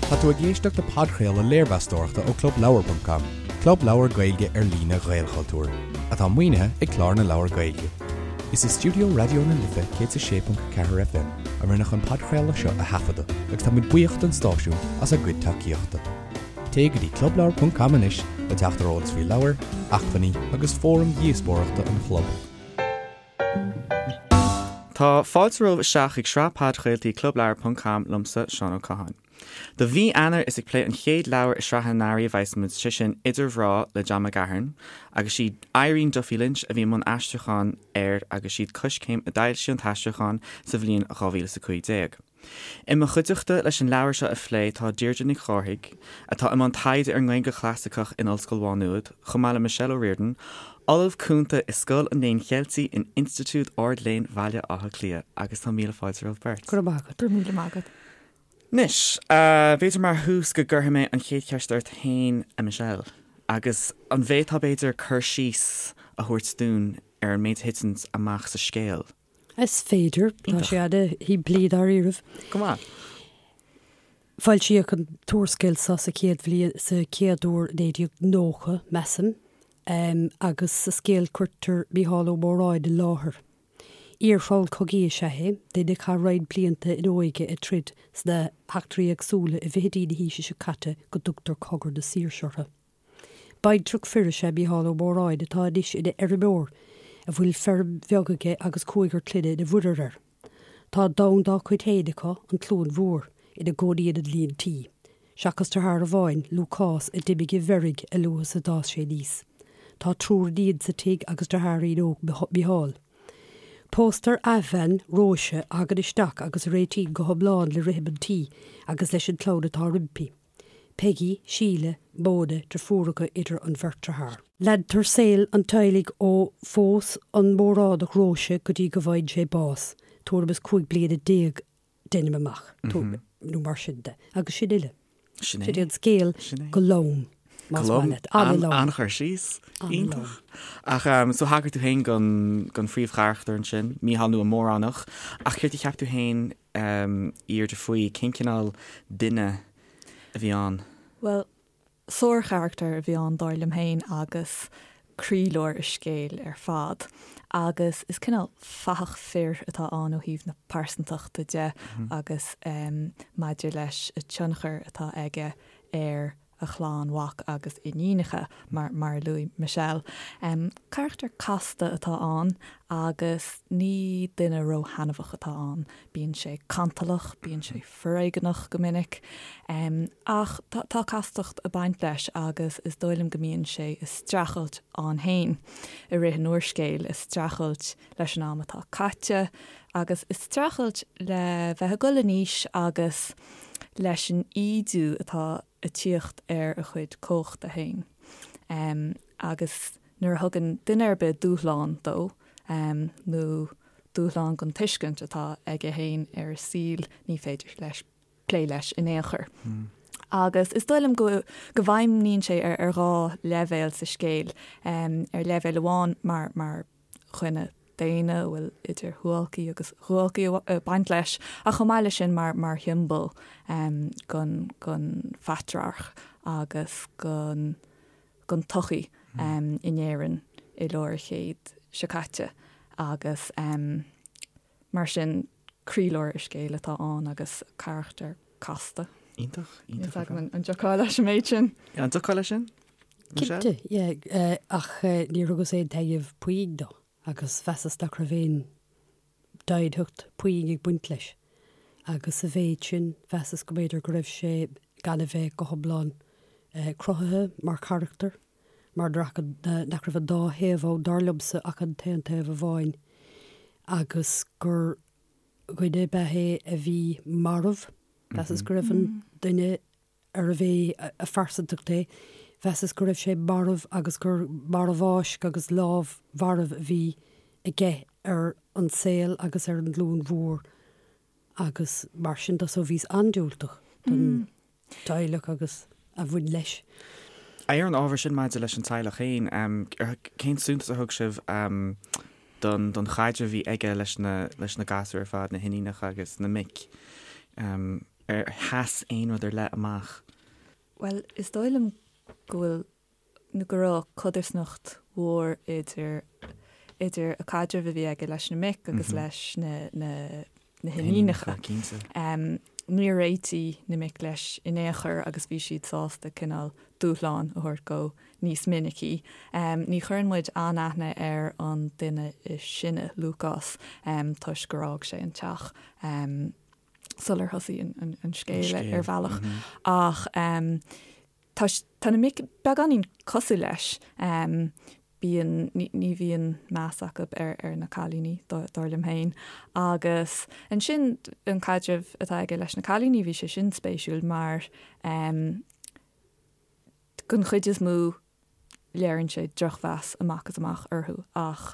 Tá tú ag éisteacht le podchraoladh léirmheastóireachta ó Clubleabhar ponc com, club leabhar Gaeilge ar líne Ghaelchultúir, atá maoinithe ag Clár na Leabhar Gaeilge. Is i stiúideo Raidió na Life 106.4 FM a rinneadh an podchraoladh seo a thaifeadadh agus tá muid buíoch don stáisiún as a gcuid tacaíochta. Téigh go dtí clubleabhar ponc com anois le teacht ar eolas faoi leabhair, acmhainní agus fóraim dhíospóireachta an chlub. Tá fáilte romhaibh isteach chuig sraith podchraoltaí Clubleabhar ponc com liomsa, Seán Ó Catháin. Do mhí Eanáir is ag plé an chéad leabhar i sraith an earraigh a bheas muid, sé sin Idir Mhná le John McGahern, agus sí Irene Duffy Lynch a bhí i mbun aistriúcháin air agus siad Coiscéim a d'fhoilsigh an t-aistriúchán sa bhliain 2015. I mo chuideachta leis an leabhar seo a phlé tá Deirdre Nic Chárthaigh, atá i mbun taighde ar an nGaeilge Chlasaiceach in Ollscoil Mhá Nuad, chomh maith le Michelle O'Riordan, Ollamh Cúnta i Scoil an Léinn Cheiltigh in Institiúid Ard-Léinn Bhaile Átha Cliath, agus tá míle fáilte romhaibh beirt. Go raibh maith agat. Go raibh míle maith agat. Anois, b'fhéidir mar thús go gcuirfidh mé an chéad cheist ort féin, a Michelle, agus an bhféadfá b'fhéidir cur síos a thabhairt dúinn ar an méid a thiteann amach sa scéal? Is féidir. Tá sé ana-shimplí dáiríribh. Go maith. Foilsíodh an t-úrscéal seo sa chéad bhliain, sa chéad uair i 1990, measaim, agus sa scéal cuirtear Mícheál Ó Móráin i láthair. Iar-thriall cogaidh is ea é, duine a chaith roinnt blianta ina óige ag troid sna heachtraí éagsúla i bhfichidí na haoise seo caite go dtugtar Cogadh na Saoirse orthu. Baintreach fir is ea Mícheál Ó Móráin atá anois ina fheirmeoir a bhfuil feirm bheag aige agus cúigear clainne ina mhuirear air. Tá domhan dá cuid féin acu, an Chluain Mhór, ina gcónaíonn an líon tí, seachas deartháir amháin, Lúcás, a d'imigh i bhfeirg a luaithe is a d'fhás sé aníos. Tá triúr iníon sa tigh agus deartháirín óg Micheál. Póstar athbhean, Róise, a thagann isteach agus a réitíonn go hiomlán le rithim an tí agus leis an chlann atá roimpi. Peigí, Síle, Móna, deirfiúracha idir an bheirt dearthár. Leantar saol an teaghlaigh ó phós an Móránach Róise go dtí go bhfaigheann sé bás, tuairim is 15 bliana deinim amach, nó mar sin de. Agus sin uile. Sin é an scéal go lom, más maith leat. An-lom. An-chur síos. Iontach. Ach so thagair tú féin don phríomhcharachtar ansin, Mícheál nó an Móránach, ach céard a cheap tú féin a Dheirdre faoi cén cineál duine a bhí ann? Bhuel, sárcharachtar a bhí ann dar liom féin agus croílár an scéil ar fad. Agus is cineál fathach fir atá ann ó thaobh na pearsantachta de agus maidir leis an tionchar atá aige ar a chlann mhac agus iníonacha, mar mar a luaigh Michelle. Carachtar casta atá ann agus ní duine róthaitneamhach atá ann. Bíonn sé cantalach, bíonn sé foréigeanach go minic, ach tá castacht ag baint leis agus is dóigh liom go mbíonn sé ag streachailt ann féin i rith an úrscéil, ag streachailt leis an am atá caite agus ag streachailt le bheith ag dul in aois agus leis an ídiú atá ag tíocht ar a chuid cumhachta féin. Agus nuair a thugann duine ar bith dúshlán dó, nó dúshlán don tuiscint atá aige féin ar an saol, ní féidir leis plé leis in aon chor. Agus is dóigh liom go go bhfeidhmníonn sé ar dhá leibhéal sa scéal. Ar leibhéal amháin mar mar dhuine daonna a bhfuil idir shuáilcí agus dhuáilcí ag baint leis, ach chomh maith leis sin mar mar shiombail gon gon phatrarc agus gon gon tsochaí in Éirinn i lár an chéid seo caite agus mar sin croílár an scéil atá ann agus carachtar casta. Iontach, iontach. Níl a fhios agam an dtiocfá leis an méid sin. An dtiocfá leis sin? Cinnte, yeah, ach níor thugas aon taitneamh puinn dó agus mheasas nach raibh aon doimhneacht puinn ag baint leis. Agus sa mhéid sin, mheasas go mb'fhéidir go raibh sé gan a bheith go hiomlán cruthaithe mar charachtar, mar nach raibh an dá thaobh ann, dar liomsa, ach an t-aon taobh amháin, agus gur dhuine ab ea é a bhí marbh. Mheasas go raibh an duine arbh é a phearsantacht é, mheasas go raibh sé marbh agus gur marbhfháisc agus lámh mharbh a bhí aige ar an saol agus ar an gCluain Mhór agus mar sin de. So bhíos an-diúltach don teaghlach agus a bhain leis. Ar an ábhar sin maidir leis an teaghlach féin, cén suntas a thug sibh don don chaidreamh a bhí aige leis na leis na gasúir ar fad, na hiníonacha agus na mic? Ar sheas aon rud ar leith amach? Bhuel, is dóigh liom go bhfuil nó go raibh codarsnacht mhór idir idir an caidreamh a bhí aige leis na mic agus leis na na na hiníonacha. Cinnte. Níor réitigh na mic leis in aon chor agus bhí siad sásta cineál dúshlán a thabhairt dó níos minicí. Ní chuireann muid an-aithne ar an duine is sine, Lúcás, toisc gur fhág sé an teach sular thosaigh an scéal ar bhealach. Ach tá tá na mic beagáinín cosúil leis. Bíonn, ní bhíonn meas acu ar ar na cailíní, dar liom féin. Agus ansin an caidreamh atá aige leis na cailíní, bhí sé sin spéisiúil mar den chuid is mó léiríonn sé drochmheas amach is amach orthu ach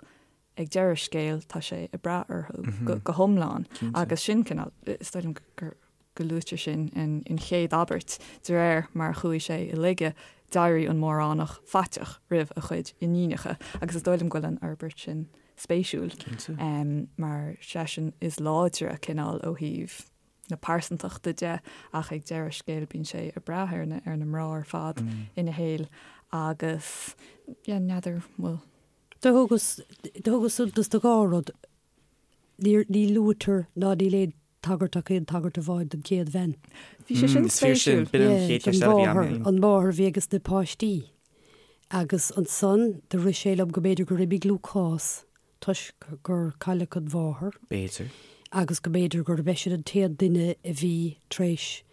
ag deireadh scéil tá sé ag brath orthu go hiomlán agus sin cineál, is dóigh liom gur go luaitear sin in chéad abairt, de réir mar a chuaigh sé i laige d'éirigh an Móránach faiteach roimh a chuid iníonacha agus is dóigh liom go bhfuil an fhorbairt sin spéisiúil mar seisean is láidre cineál ó thaobh na pearsantachta de ach ag deireadh scéil bíonn sé ag brath ar na ar na mná ar fad ina shaol agus yeah n'fheadar bhfuil Do thugas, do thugas suntas do dhá rud. Níor, ní luaitear ná níl aon tagairt ach aon tagairt amháin don chéad bhean. Bhí sé sin Is fíor sin, spéisiúil. b'in an Yeah, chéad don cheist eile a bhí agam mháthair, féin. an mháthair a bhí ages na páistí. Agus ansan do rith sé liom go mb'fhéidir gur imigh Lúcás toisc gur cailleadh an mháthair. B'fhéidir. Agus go mb'fhéidir gurb eisean an t-aon duine a bhí tar éis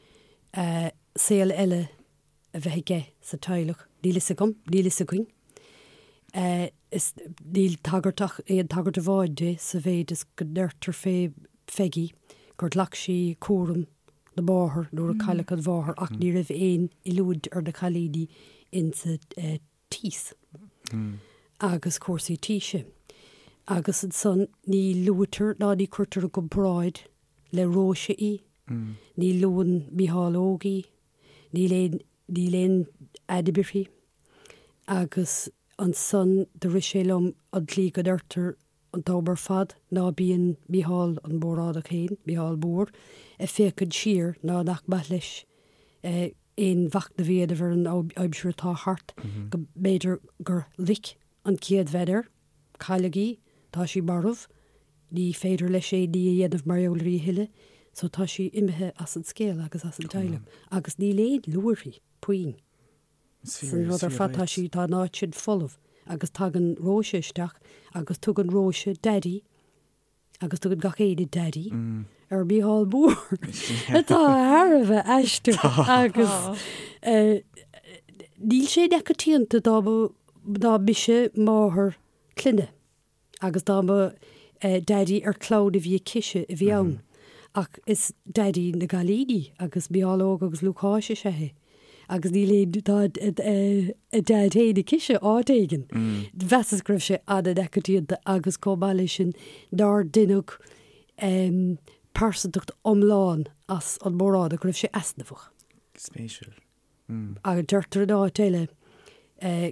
saol eile a bheith aige sa teaghlach. Níl fhios agam, níl fhios againn. Is níl tagairt ach aon tagairt amháin di sa mhéid is go ndeirtear fé Pheigí gur ghlac sí cúram na máthar nuair a cailleadh an mháthair ach ní raibh aon oiliúint ar na cailíní insa tíos agus cúrsaí tíse. Agus ansan ní luaitear ná ní cuirtear i gcomparáid le Róise í, ní luann Mícheál Óg í, níl aon, níl aon ainm uirthi. Agus ansan do rith sé liom an tslí go ndeirtear an t-am ar fad ná bíonn Mícheál an Móránach féin, Mícheál Mór, ag féachaint siar ná nach maith leis aon mhachnamh a dhéanamh ar an aimsir atá thart, go mb'fhéidir gur loic an chéad bhean air, cailleadh í, tá sí marbh, ní féidir leis aon ní a dhéanamh mar gheall uirthi a thuilleadh, so tá sí imithe as an scéal agus as an teaghlach agus níl aon lua uirthi, puinn. San rud ar fad tá sí, tá an áit sin folamh agus tagann Róise isteach agus tugann Róise Daidí agus tugann gach éinne Daidí ar Mícheál Mór atá thar a bheith aisteach agus níl sé neamhchoitianta dá mba dá mise máthair clainne. Agus dá mba Daidí ar chlann a bhí aicise a bhí ann. Ach is Daidí na gcailíní agus Mícheál Óg agus Lúcáis is ea é. Agus níl aon, tá a Daid féin aicise áit éigin. Mheasas go raibh sé an-neamhchoitianta agus chomh maith leis sin nár deineadh pearsantacht iomlán as an Móránach, go raibh sé easnamhach. Spéisiúil. Agus deirtear in áit eile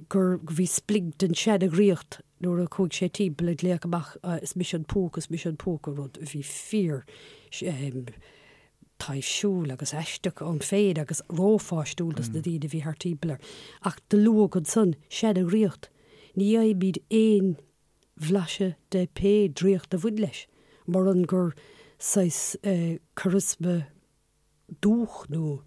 gur bhí splinc den seana-dhraíocht nuair a chuaigh sé timpeall ag glaoch amach 'is mise an púca, is mise an púca', rud a bhí fíor taibhsiúil agus aisteach ann féin agus rópháistiúil dos na daoine a bhí thart timpeall air. Ach do luadh ansan seana-dhraíocht. Ní fhaighimid aon bhlaiseadh de pé draíocht a bhain leis, muran gur saghas charisma dúch nó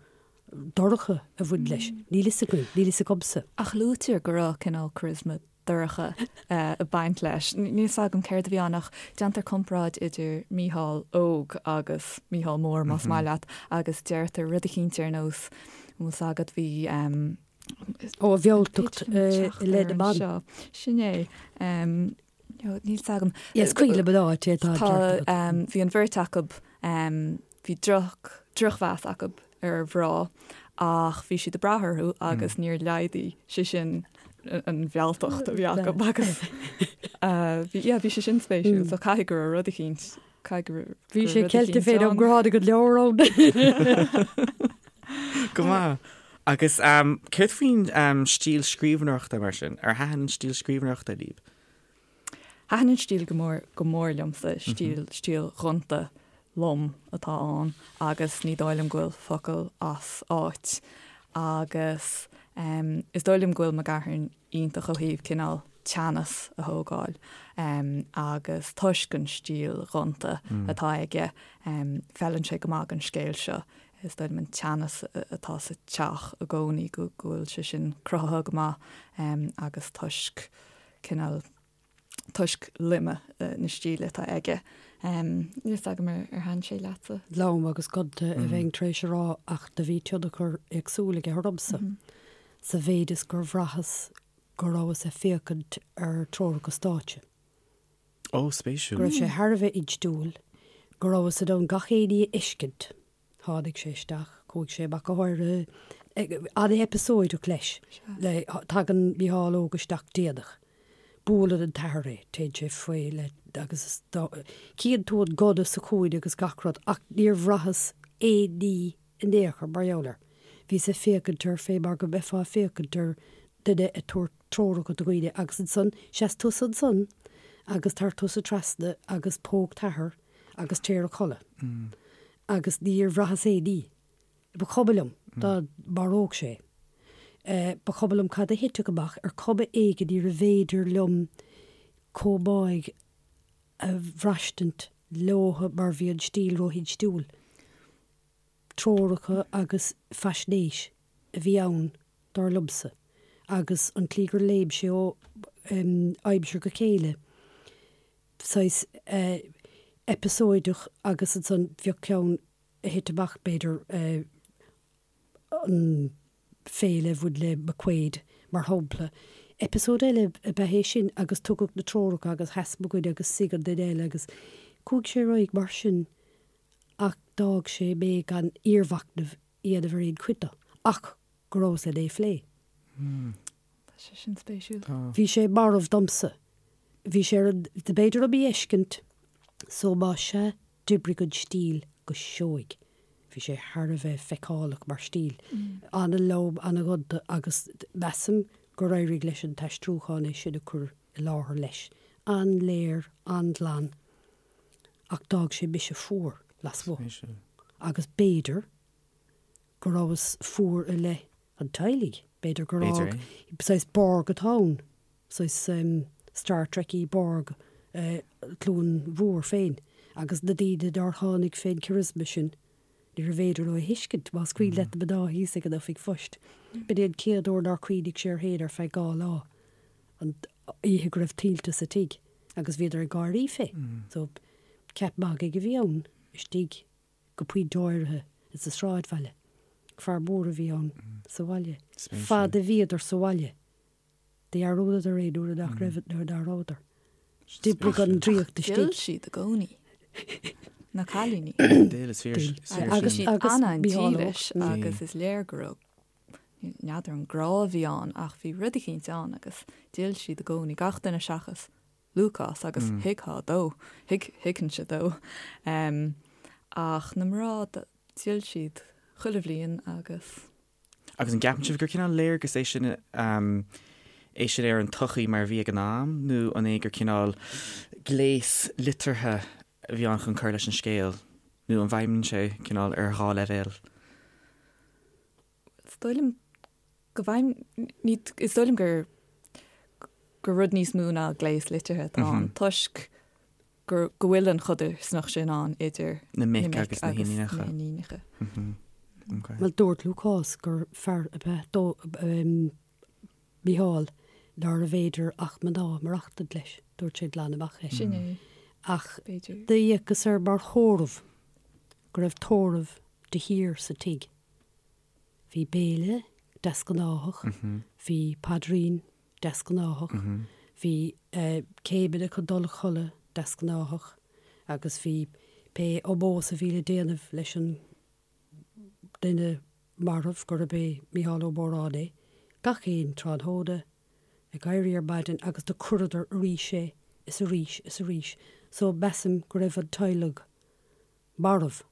dorcha a bhain leis. Níl fhios againn, níl fhios agamsa. Ach luaitear go raibh cineál charisma dorcha ag baint leis. Níl fhios agam céard a bhí ann ach déantar comparáid idir Mícheál Óg agus Mícheál Mór, más maith leat, agus deirtear rud eicínt ar nós, an bhfuil fhios agat, bhí. Ó, a mhealltacht i leith na mban. Sin é. Níl fhios agam. Is cuimhin liom an áit é, tá an ceart agat. Bhí an bheirt acu, bhí droch, drochmheas acu ar mhná ach bhí siad ag brath orthu agus níor laghdaigh sé sin an mhealltacht a bhí acu agus bhí, yeah, bhí sé sin spéisiúil so caithfidh go raibh rud eicínt, caithfidh go raibh Bhí sé ceilte féin am gur tháinig an leabhar ann. Go maith. Agus céard faoin stíl scríbhneoireachta mar sin? Ar thaitin an stíl scríbhneoireachta libh? Thaitin an stíl go mór, go mór liomsa, stíl, stíl ghonta. lom atá ann agus ní dóigh liom go bhfuil focal as áit agus is dóigh liom go bhfuil McGahern iontach ó thaobh cineál teannas a thógáil agus toisc an stíl ghonta atá aige feileann sé go maith don scéal seo. Is dóigh liom an teannas atá sa teach i gcónaí go bhfuil sé sin cruthaithe go maith agus toisc cineál toisc loime na stíle atá aige. Níl fhios agam ar thaitin sé leatsa? Lom agus gonta a bheinn tar éis a rá ach do bhí tionchar éagsúil aige ormsa sa mhéid is gur bhraitheas go rabhas ag féachaint ar treoracha stáitse. Ó, spéisiúil. Go raibh sé thar a bheith instiúil, go rabhas in ann gach aon ní a fheiscint. Tháinig sé isteach, chuaigh sé amach go háirithe, an-eipeasóideach leis. Tagann Mícheál Óg isteach déanach. Buaileann an t-athair é, téann sé faoi le agus cíonn tú an gunna sa chúinne agus gach rud ach níor bhraitheas aon ní in aon chor mar gheall air. Bhíos ag féachaint air fé mar go mbeifeá ag féachaint ar duine ag tabhairt treoracha do dhaoine agus ansan seas tusa ansan agus tar tusa trasna agus póg t'athair agus téir a chodladh. Agus níor bhraitheas aon ní. Ba chuma liom dá maródh sé. Ba chuma liom cad a thitfeadh amach, ar chuma éigin níorbh fhéidir liom chomh maith a bhraistint leotha mar bhí an stíl ró-instiúil. Treoracha agus faisnéis a bhí ann, dar liomsa, agus an tslí gur léim sé ó aimsir go chéile, saghas eipeasóideach agus ansan bheadh ceann a thit amach, b'fhéidir, an féile a bhain le McQuaid, mar shampla. Eipeasóid eile ab ea é sin agus tugadh na treoracha agus sheas mo dhuine agus suigh an duine eile agus chuaigh sé ar aghaidh mar sin ach d'fhág sé mé gan iarmhachnamh a dhéanamh ar aon chuid de ach go rabhas len é a phlé. Tá sé sin spéisiúil. Bhí sé marbh domsa. Bhí sé ar an, b'fhéidir ó mo fheiscint so más ea d'oibrigh an stíl go seoigh. Bhí sé thar a bheith feiceálach mar stíl. An-lom, an-ghonta agus measaim gur éirigh leis an t-aistriúchán é sin a chur i láthair leis. An-léir, an-ghlan ach d'fhág sé mise fuar lasmuigh. Agus b'fhéidir go rabhas fuar i leith an teaghlaigh. B'fhéidir gur fhág saghas Borg atá ann, saghas Star Trek-y Borg Chluain Mhór féin agus na daoine nár tháinig fén charisma sin, níorbh fhéidir leo a thuiscint, más cuimhin leat na mná thíos ag an oifig phoist. B'in é an chéad uair nár chuimhnigh sé air féin ar feadh 2 lá, an oíche go raibh tuilte sa tigh agus bhíodar ag gáirí fé. So, ceap magaidh a bhí ann istigh. go pointe áirithe sa sráidbhaile. Fear mór a bhí ann sa bhaile. Fad a bhíodar sa bhaile, dhearúdadar é nuair nach raibh, nuair ná rabhadar. D'oibrigh an draíocht istigh. D'fhill siad i gcónaí. Na cailíní. D'fhill, is fíor, is fíor sin. Agus siad an-dílis agus is léir go raibh, n'fheadar an grá a bhí ann ach bhí rud eicínt ann agus d'fhill siad i gcónaí, gach duine seachas Lúcás agus thuigfeá dó, thuig, thuigfinnse dó. Ach na mná, d'fhill siad chuile bhliain agus. Agus an gceapann sibh gur cineál léargas é sin, é sin ar an tsochaí mar a bhí ag an am nó an é gur cineál gléas liteartha a bhí ann chun cur leis an scéal nó an bhfeidhmíonn sé cineál ar dhá leibhéal? Is dóigh liom go bhfeidhm, ní, is dóigh liom gur, gur rud níos mó ná gléas liteartha atá ann toisc gur, go bhfuil an chodarsnacht sin ann idir na mic agus na hiníonacha. Bhuel, dúirt Lúcás gur fear ab ea dó, Mícheál, nárbh fhéidir ach mná maireachtaint leis. Dúirt sé glan amach é. Sin é. Ach d'fhéachas air mar thórramh, go raibh tórramh de shíor sa tigh. Bhí béile deasghnáthach, bhí paidrín deasghnáthach, bhí céimeanna chun dul a chodladh deasghnáthach agus bhí pé ómós a bhí le déanamh leis an duine marbh, gurb é Mícheál Ó Móráin é, gach aon tráthnóna ag éirí ar maidin agus do cuireadar arís é is arís is arís so measaim go raibh an teaghlach marbh.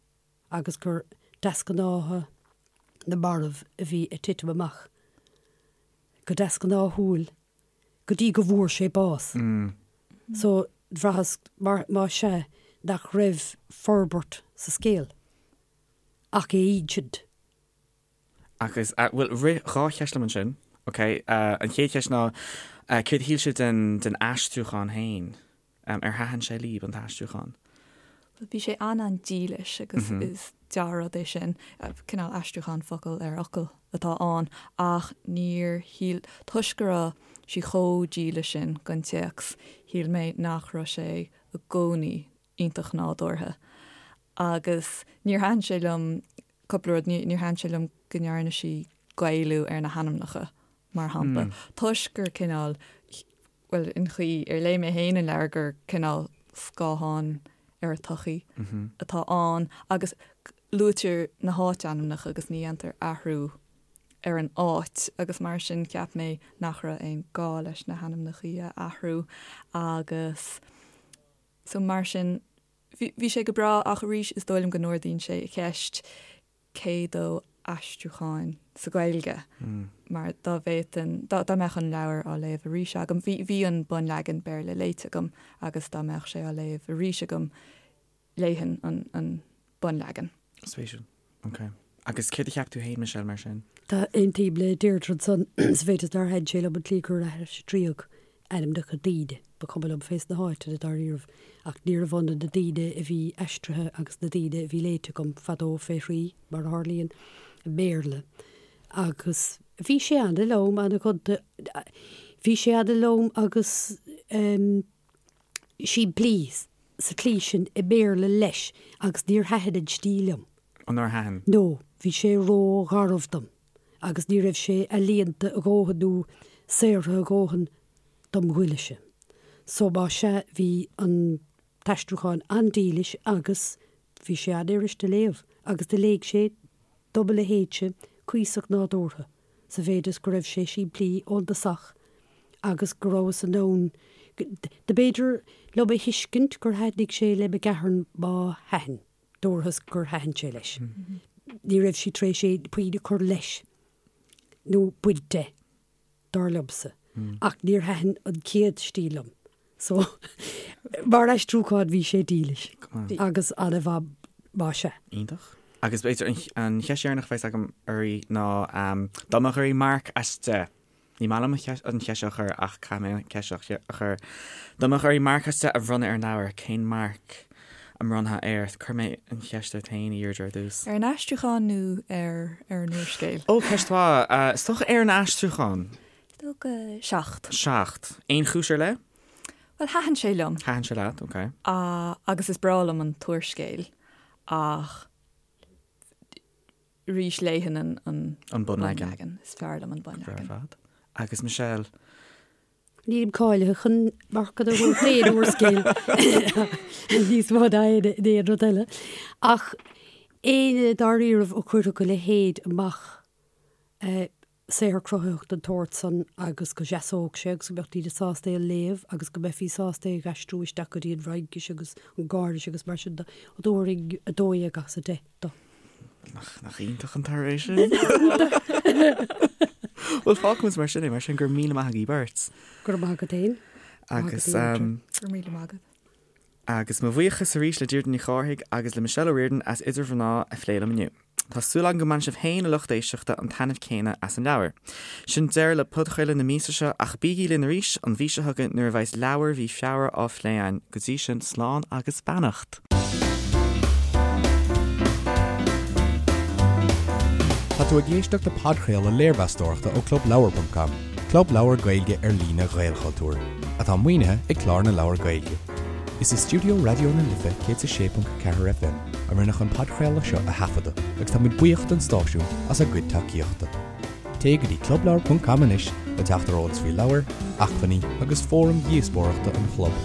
agus gur deasghnátha na marbh a bhí ag titim amach go deasghnáthúil go dtí go bhfuair sé bás. So, bhraitheas, mar, más ea, nach raibh forbairt sa scéal ach é a insint. Agus, bhuel, rith 2 cheist liom ansin, ok. An chéad cheist ná, céard a shíl sibh den, den aistriúchán féin? Ar thaitin sé libh, an t-aistriúchán? Bhuel, bhí sé an-an-dílis agus is dea-rud é sin. Cineál aistriúchán focal ar fhocal atá ann ach níor shíl, toisc go raibh sí chomh dílis sin don téacs, shíl mé nach raibh sé i gcónaí iontach nádúrtha. Agus níor thaitin sé liom cúpla rud, níor thaitin sé liom go ndearna sí Gaelú ar na hainmneacha, mar shampla, toisc gur cineál, bhuel, an chaoi ar léigh mé féin an leabhar gur cineál scáthán ar an tsochaí atá ann agus luaitear na háitainmneacha agus ní dhéantar athrú ar an áit agus mar sin cheap mé nach raibh aon gá leis na hainmneacha a athrú agus so mar sin bhí sé go breá ach arís is dóigh liom go n-ardaíonn sé an cheist cé dó aistriúcháin sa Ghaeilge mar dá bhféadfainn, dá mbeadh an leabhar á léamh arís agam, bhí bhí an bunleagan Béarla léite agam agus dá mbeadh sé á léamh arís agam léifinn an an bunleagan. Spéisiúil. Ok. Agus céard a cheap tú féin, Michelle, mar sin? Tá, aontaím le Deirdre ansan, sa mhéid is nár thaitin sé liom an tslí gur aistríodh ainmneacha daoine. Ba chuma liom fés na háiteanna dáiríribh, ach níorbh ionann na daoine a bhí aistrithe agus na daoine a bhí léite agam fadó fé thrí, mar a tharlaíonn, i mBéarla. Agus bhí sé ana-lom, ana-ghonta, bhí sé ana-lom agus simplí sa tslí sin i mBéarla leis agus níor thaitin an stíl liom. Ó nár thaitin? No, bhí sé ró-gharbh dom agus ní raibh sé ealaíonta a dhóthain nó saothraithe a dhóthain dom ghoile-se. So má sea bhí an t-aistriúchán an-dílis agus bhí sé an-fhuirist a léamh agus do léigh sé do mo leithéidse cuíosach nádúrtha. sa mhéid is go raibh sé simplí ón dtosach agus go rabhas in ann, do b'fhéidir liom a thuiscint gur thaitnigh sé le McGahern má thaitin, dúrthas gur thaitin sé leis. Ní raibh sí tar éis aon puinn a chur leis nó baint de. dar liomsa, ach níor thaitin an chéad stíl liom. So, mar aistriúchán bhí sé dílis agus an-mhaith más ea. Iontach. Agus b'fhéidir an cheist dheireanach a bheas agam oraibh ná dá mbeadh oraibh marc as 10, ní maith liom an cheist seo a chur ach caithfidh mé an cheist seo a chur, dá mbeadh oraibh marc as 10 a bhronnadh ar an leabhar, cén marc a mbronnfá air? Cuirfidh mé an cheist ort féin, a Dheirdre, ar dtús. Ar an aistriúchán nó ar ar an úrscéal? Ó, ceist mhaith. Is dócha ar an aistriúchán. Is dócha 7. 7. Aon chúis ar leith? Bhuel, thaitin sé liom. Thaitin sé leat, ok. Agus is breá liom an t-úrscéal ach arís léifinn an an bunleagan. Is fearr liom an bunleagan. Go breá ar fad. Agus Michelle? Nílim cáilithe chun marcanna a thabhairt d'aon úrscéal níos mó ná aon rud eile. Ach éinne dáiríribh a chuirfeadh a leithéid amach, saothar cruthaitheach den tsórt san agus go seasódh sé agus go mbeadh daoine sásta é a léamh agus go mbeifí sásta é a aistriú isteach go dtí an bhFraincis agus an Gháiris agus mar sin de, thabharfainn 12 as 10 dó. Nach iontach an toradh é sin? Bhuel, fágfaimid mar sin é, mar sin go raibh míle maith agaibh beirt. Go raibh maith agat féin. Agus Go raibh míle maith agat. Agus mo bhuíochas arís le Deirdre Ní Chárthaigh agus le Michelle O'Riordan as Idir Mhná a phlé liom inniu. Tá súil agam go mbainfidh sibh féin, a lucht éisteachta, an taitneamh céanna as an leabhar. Sin deireadh le podchraoladh na míosa seo ach bígí linn arís an mhí seo chugainn nuair a bheas leabhar mhí Feabhra á phlé againn. Go dtí sin, slán agus beannacht! Tá tú ag éisteacht le podchraoladh léirmheastóireachta ó ClubLeabhar.com, club leabhar Gaeilge ar líne Ghaelchultúir, atá maoinithe ag Clár na Leabhar Gaeilge. Is i stiúideo Raidió na Life 106.4 FM a rinneadh an podchraoladh seo a thaifeadadh agus táimid buíoch don stáisiún as a gcuid tacaíochta. Téigh go dtí clubleabhar.com anois le teacht ar eolas faoi leabhair, acmhainní agus fóraim dhíospóireachta an chlub.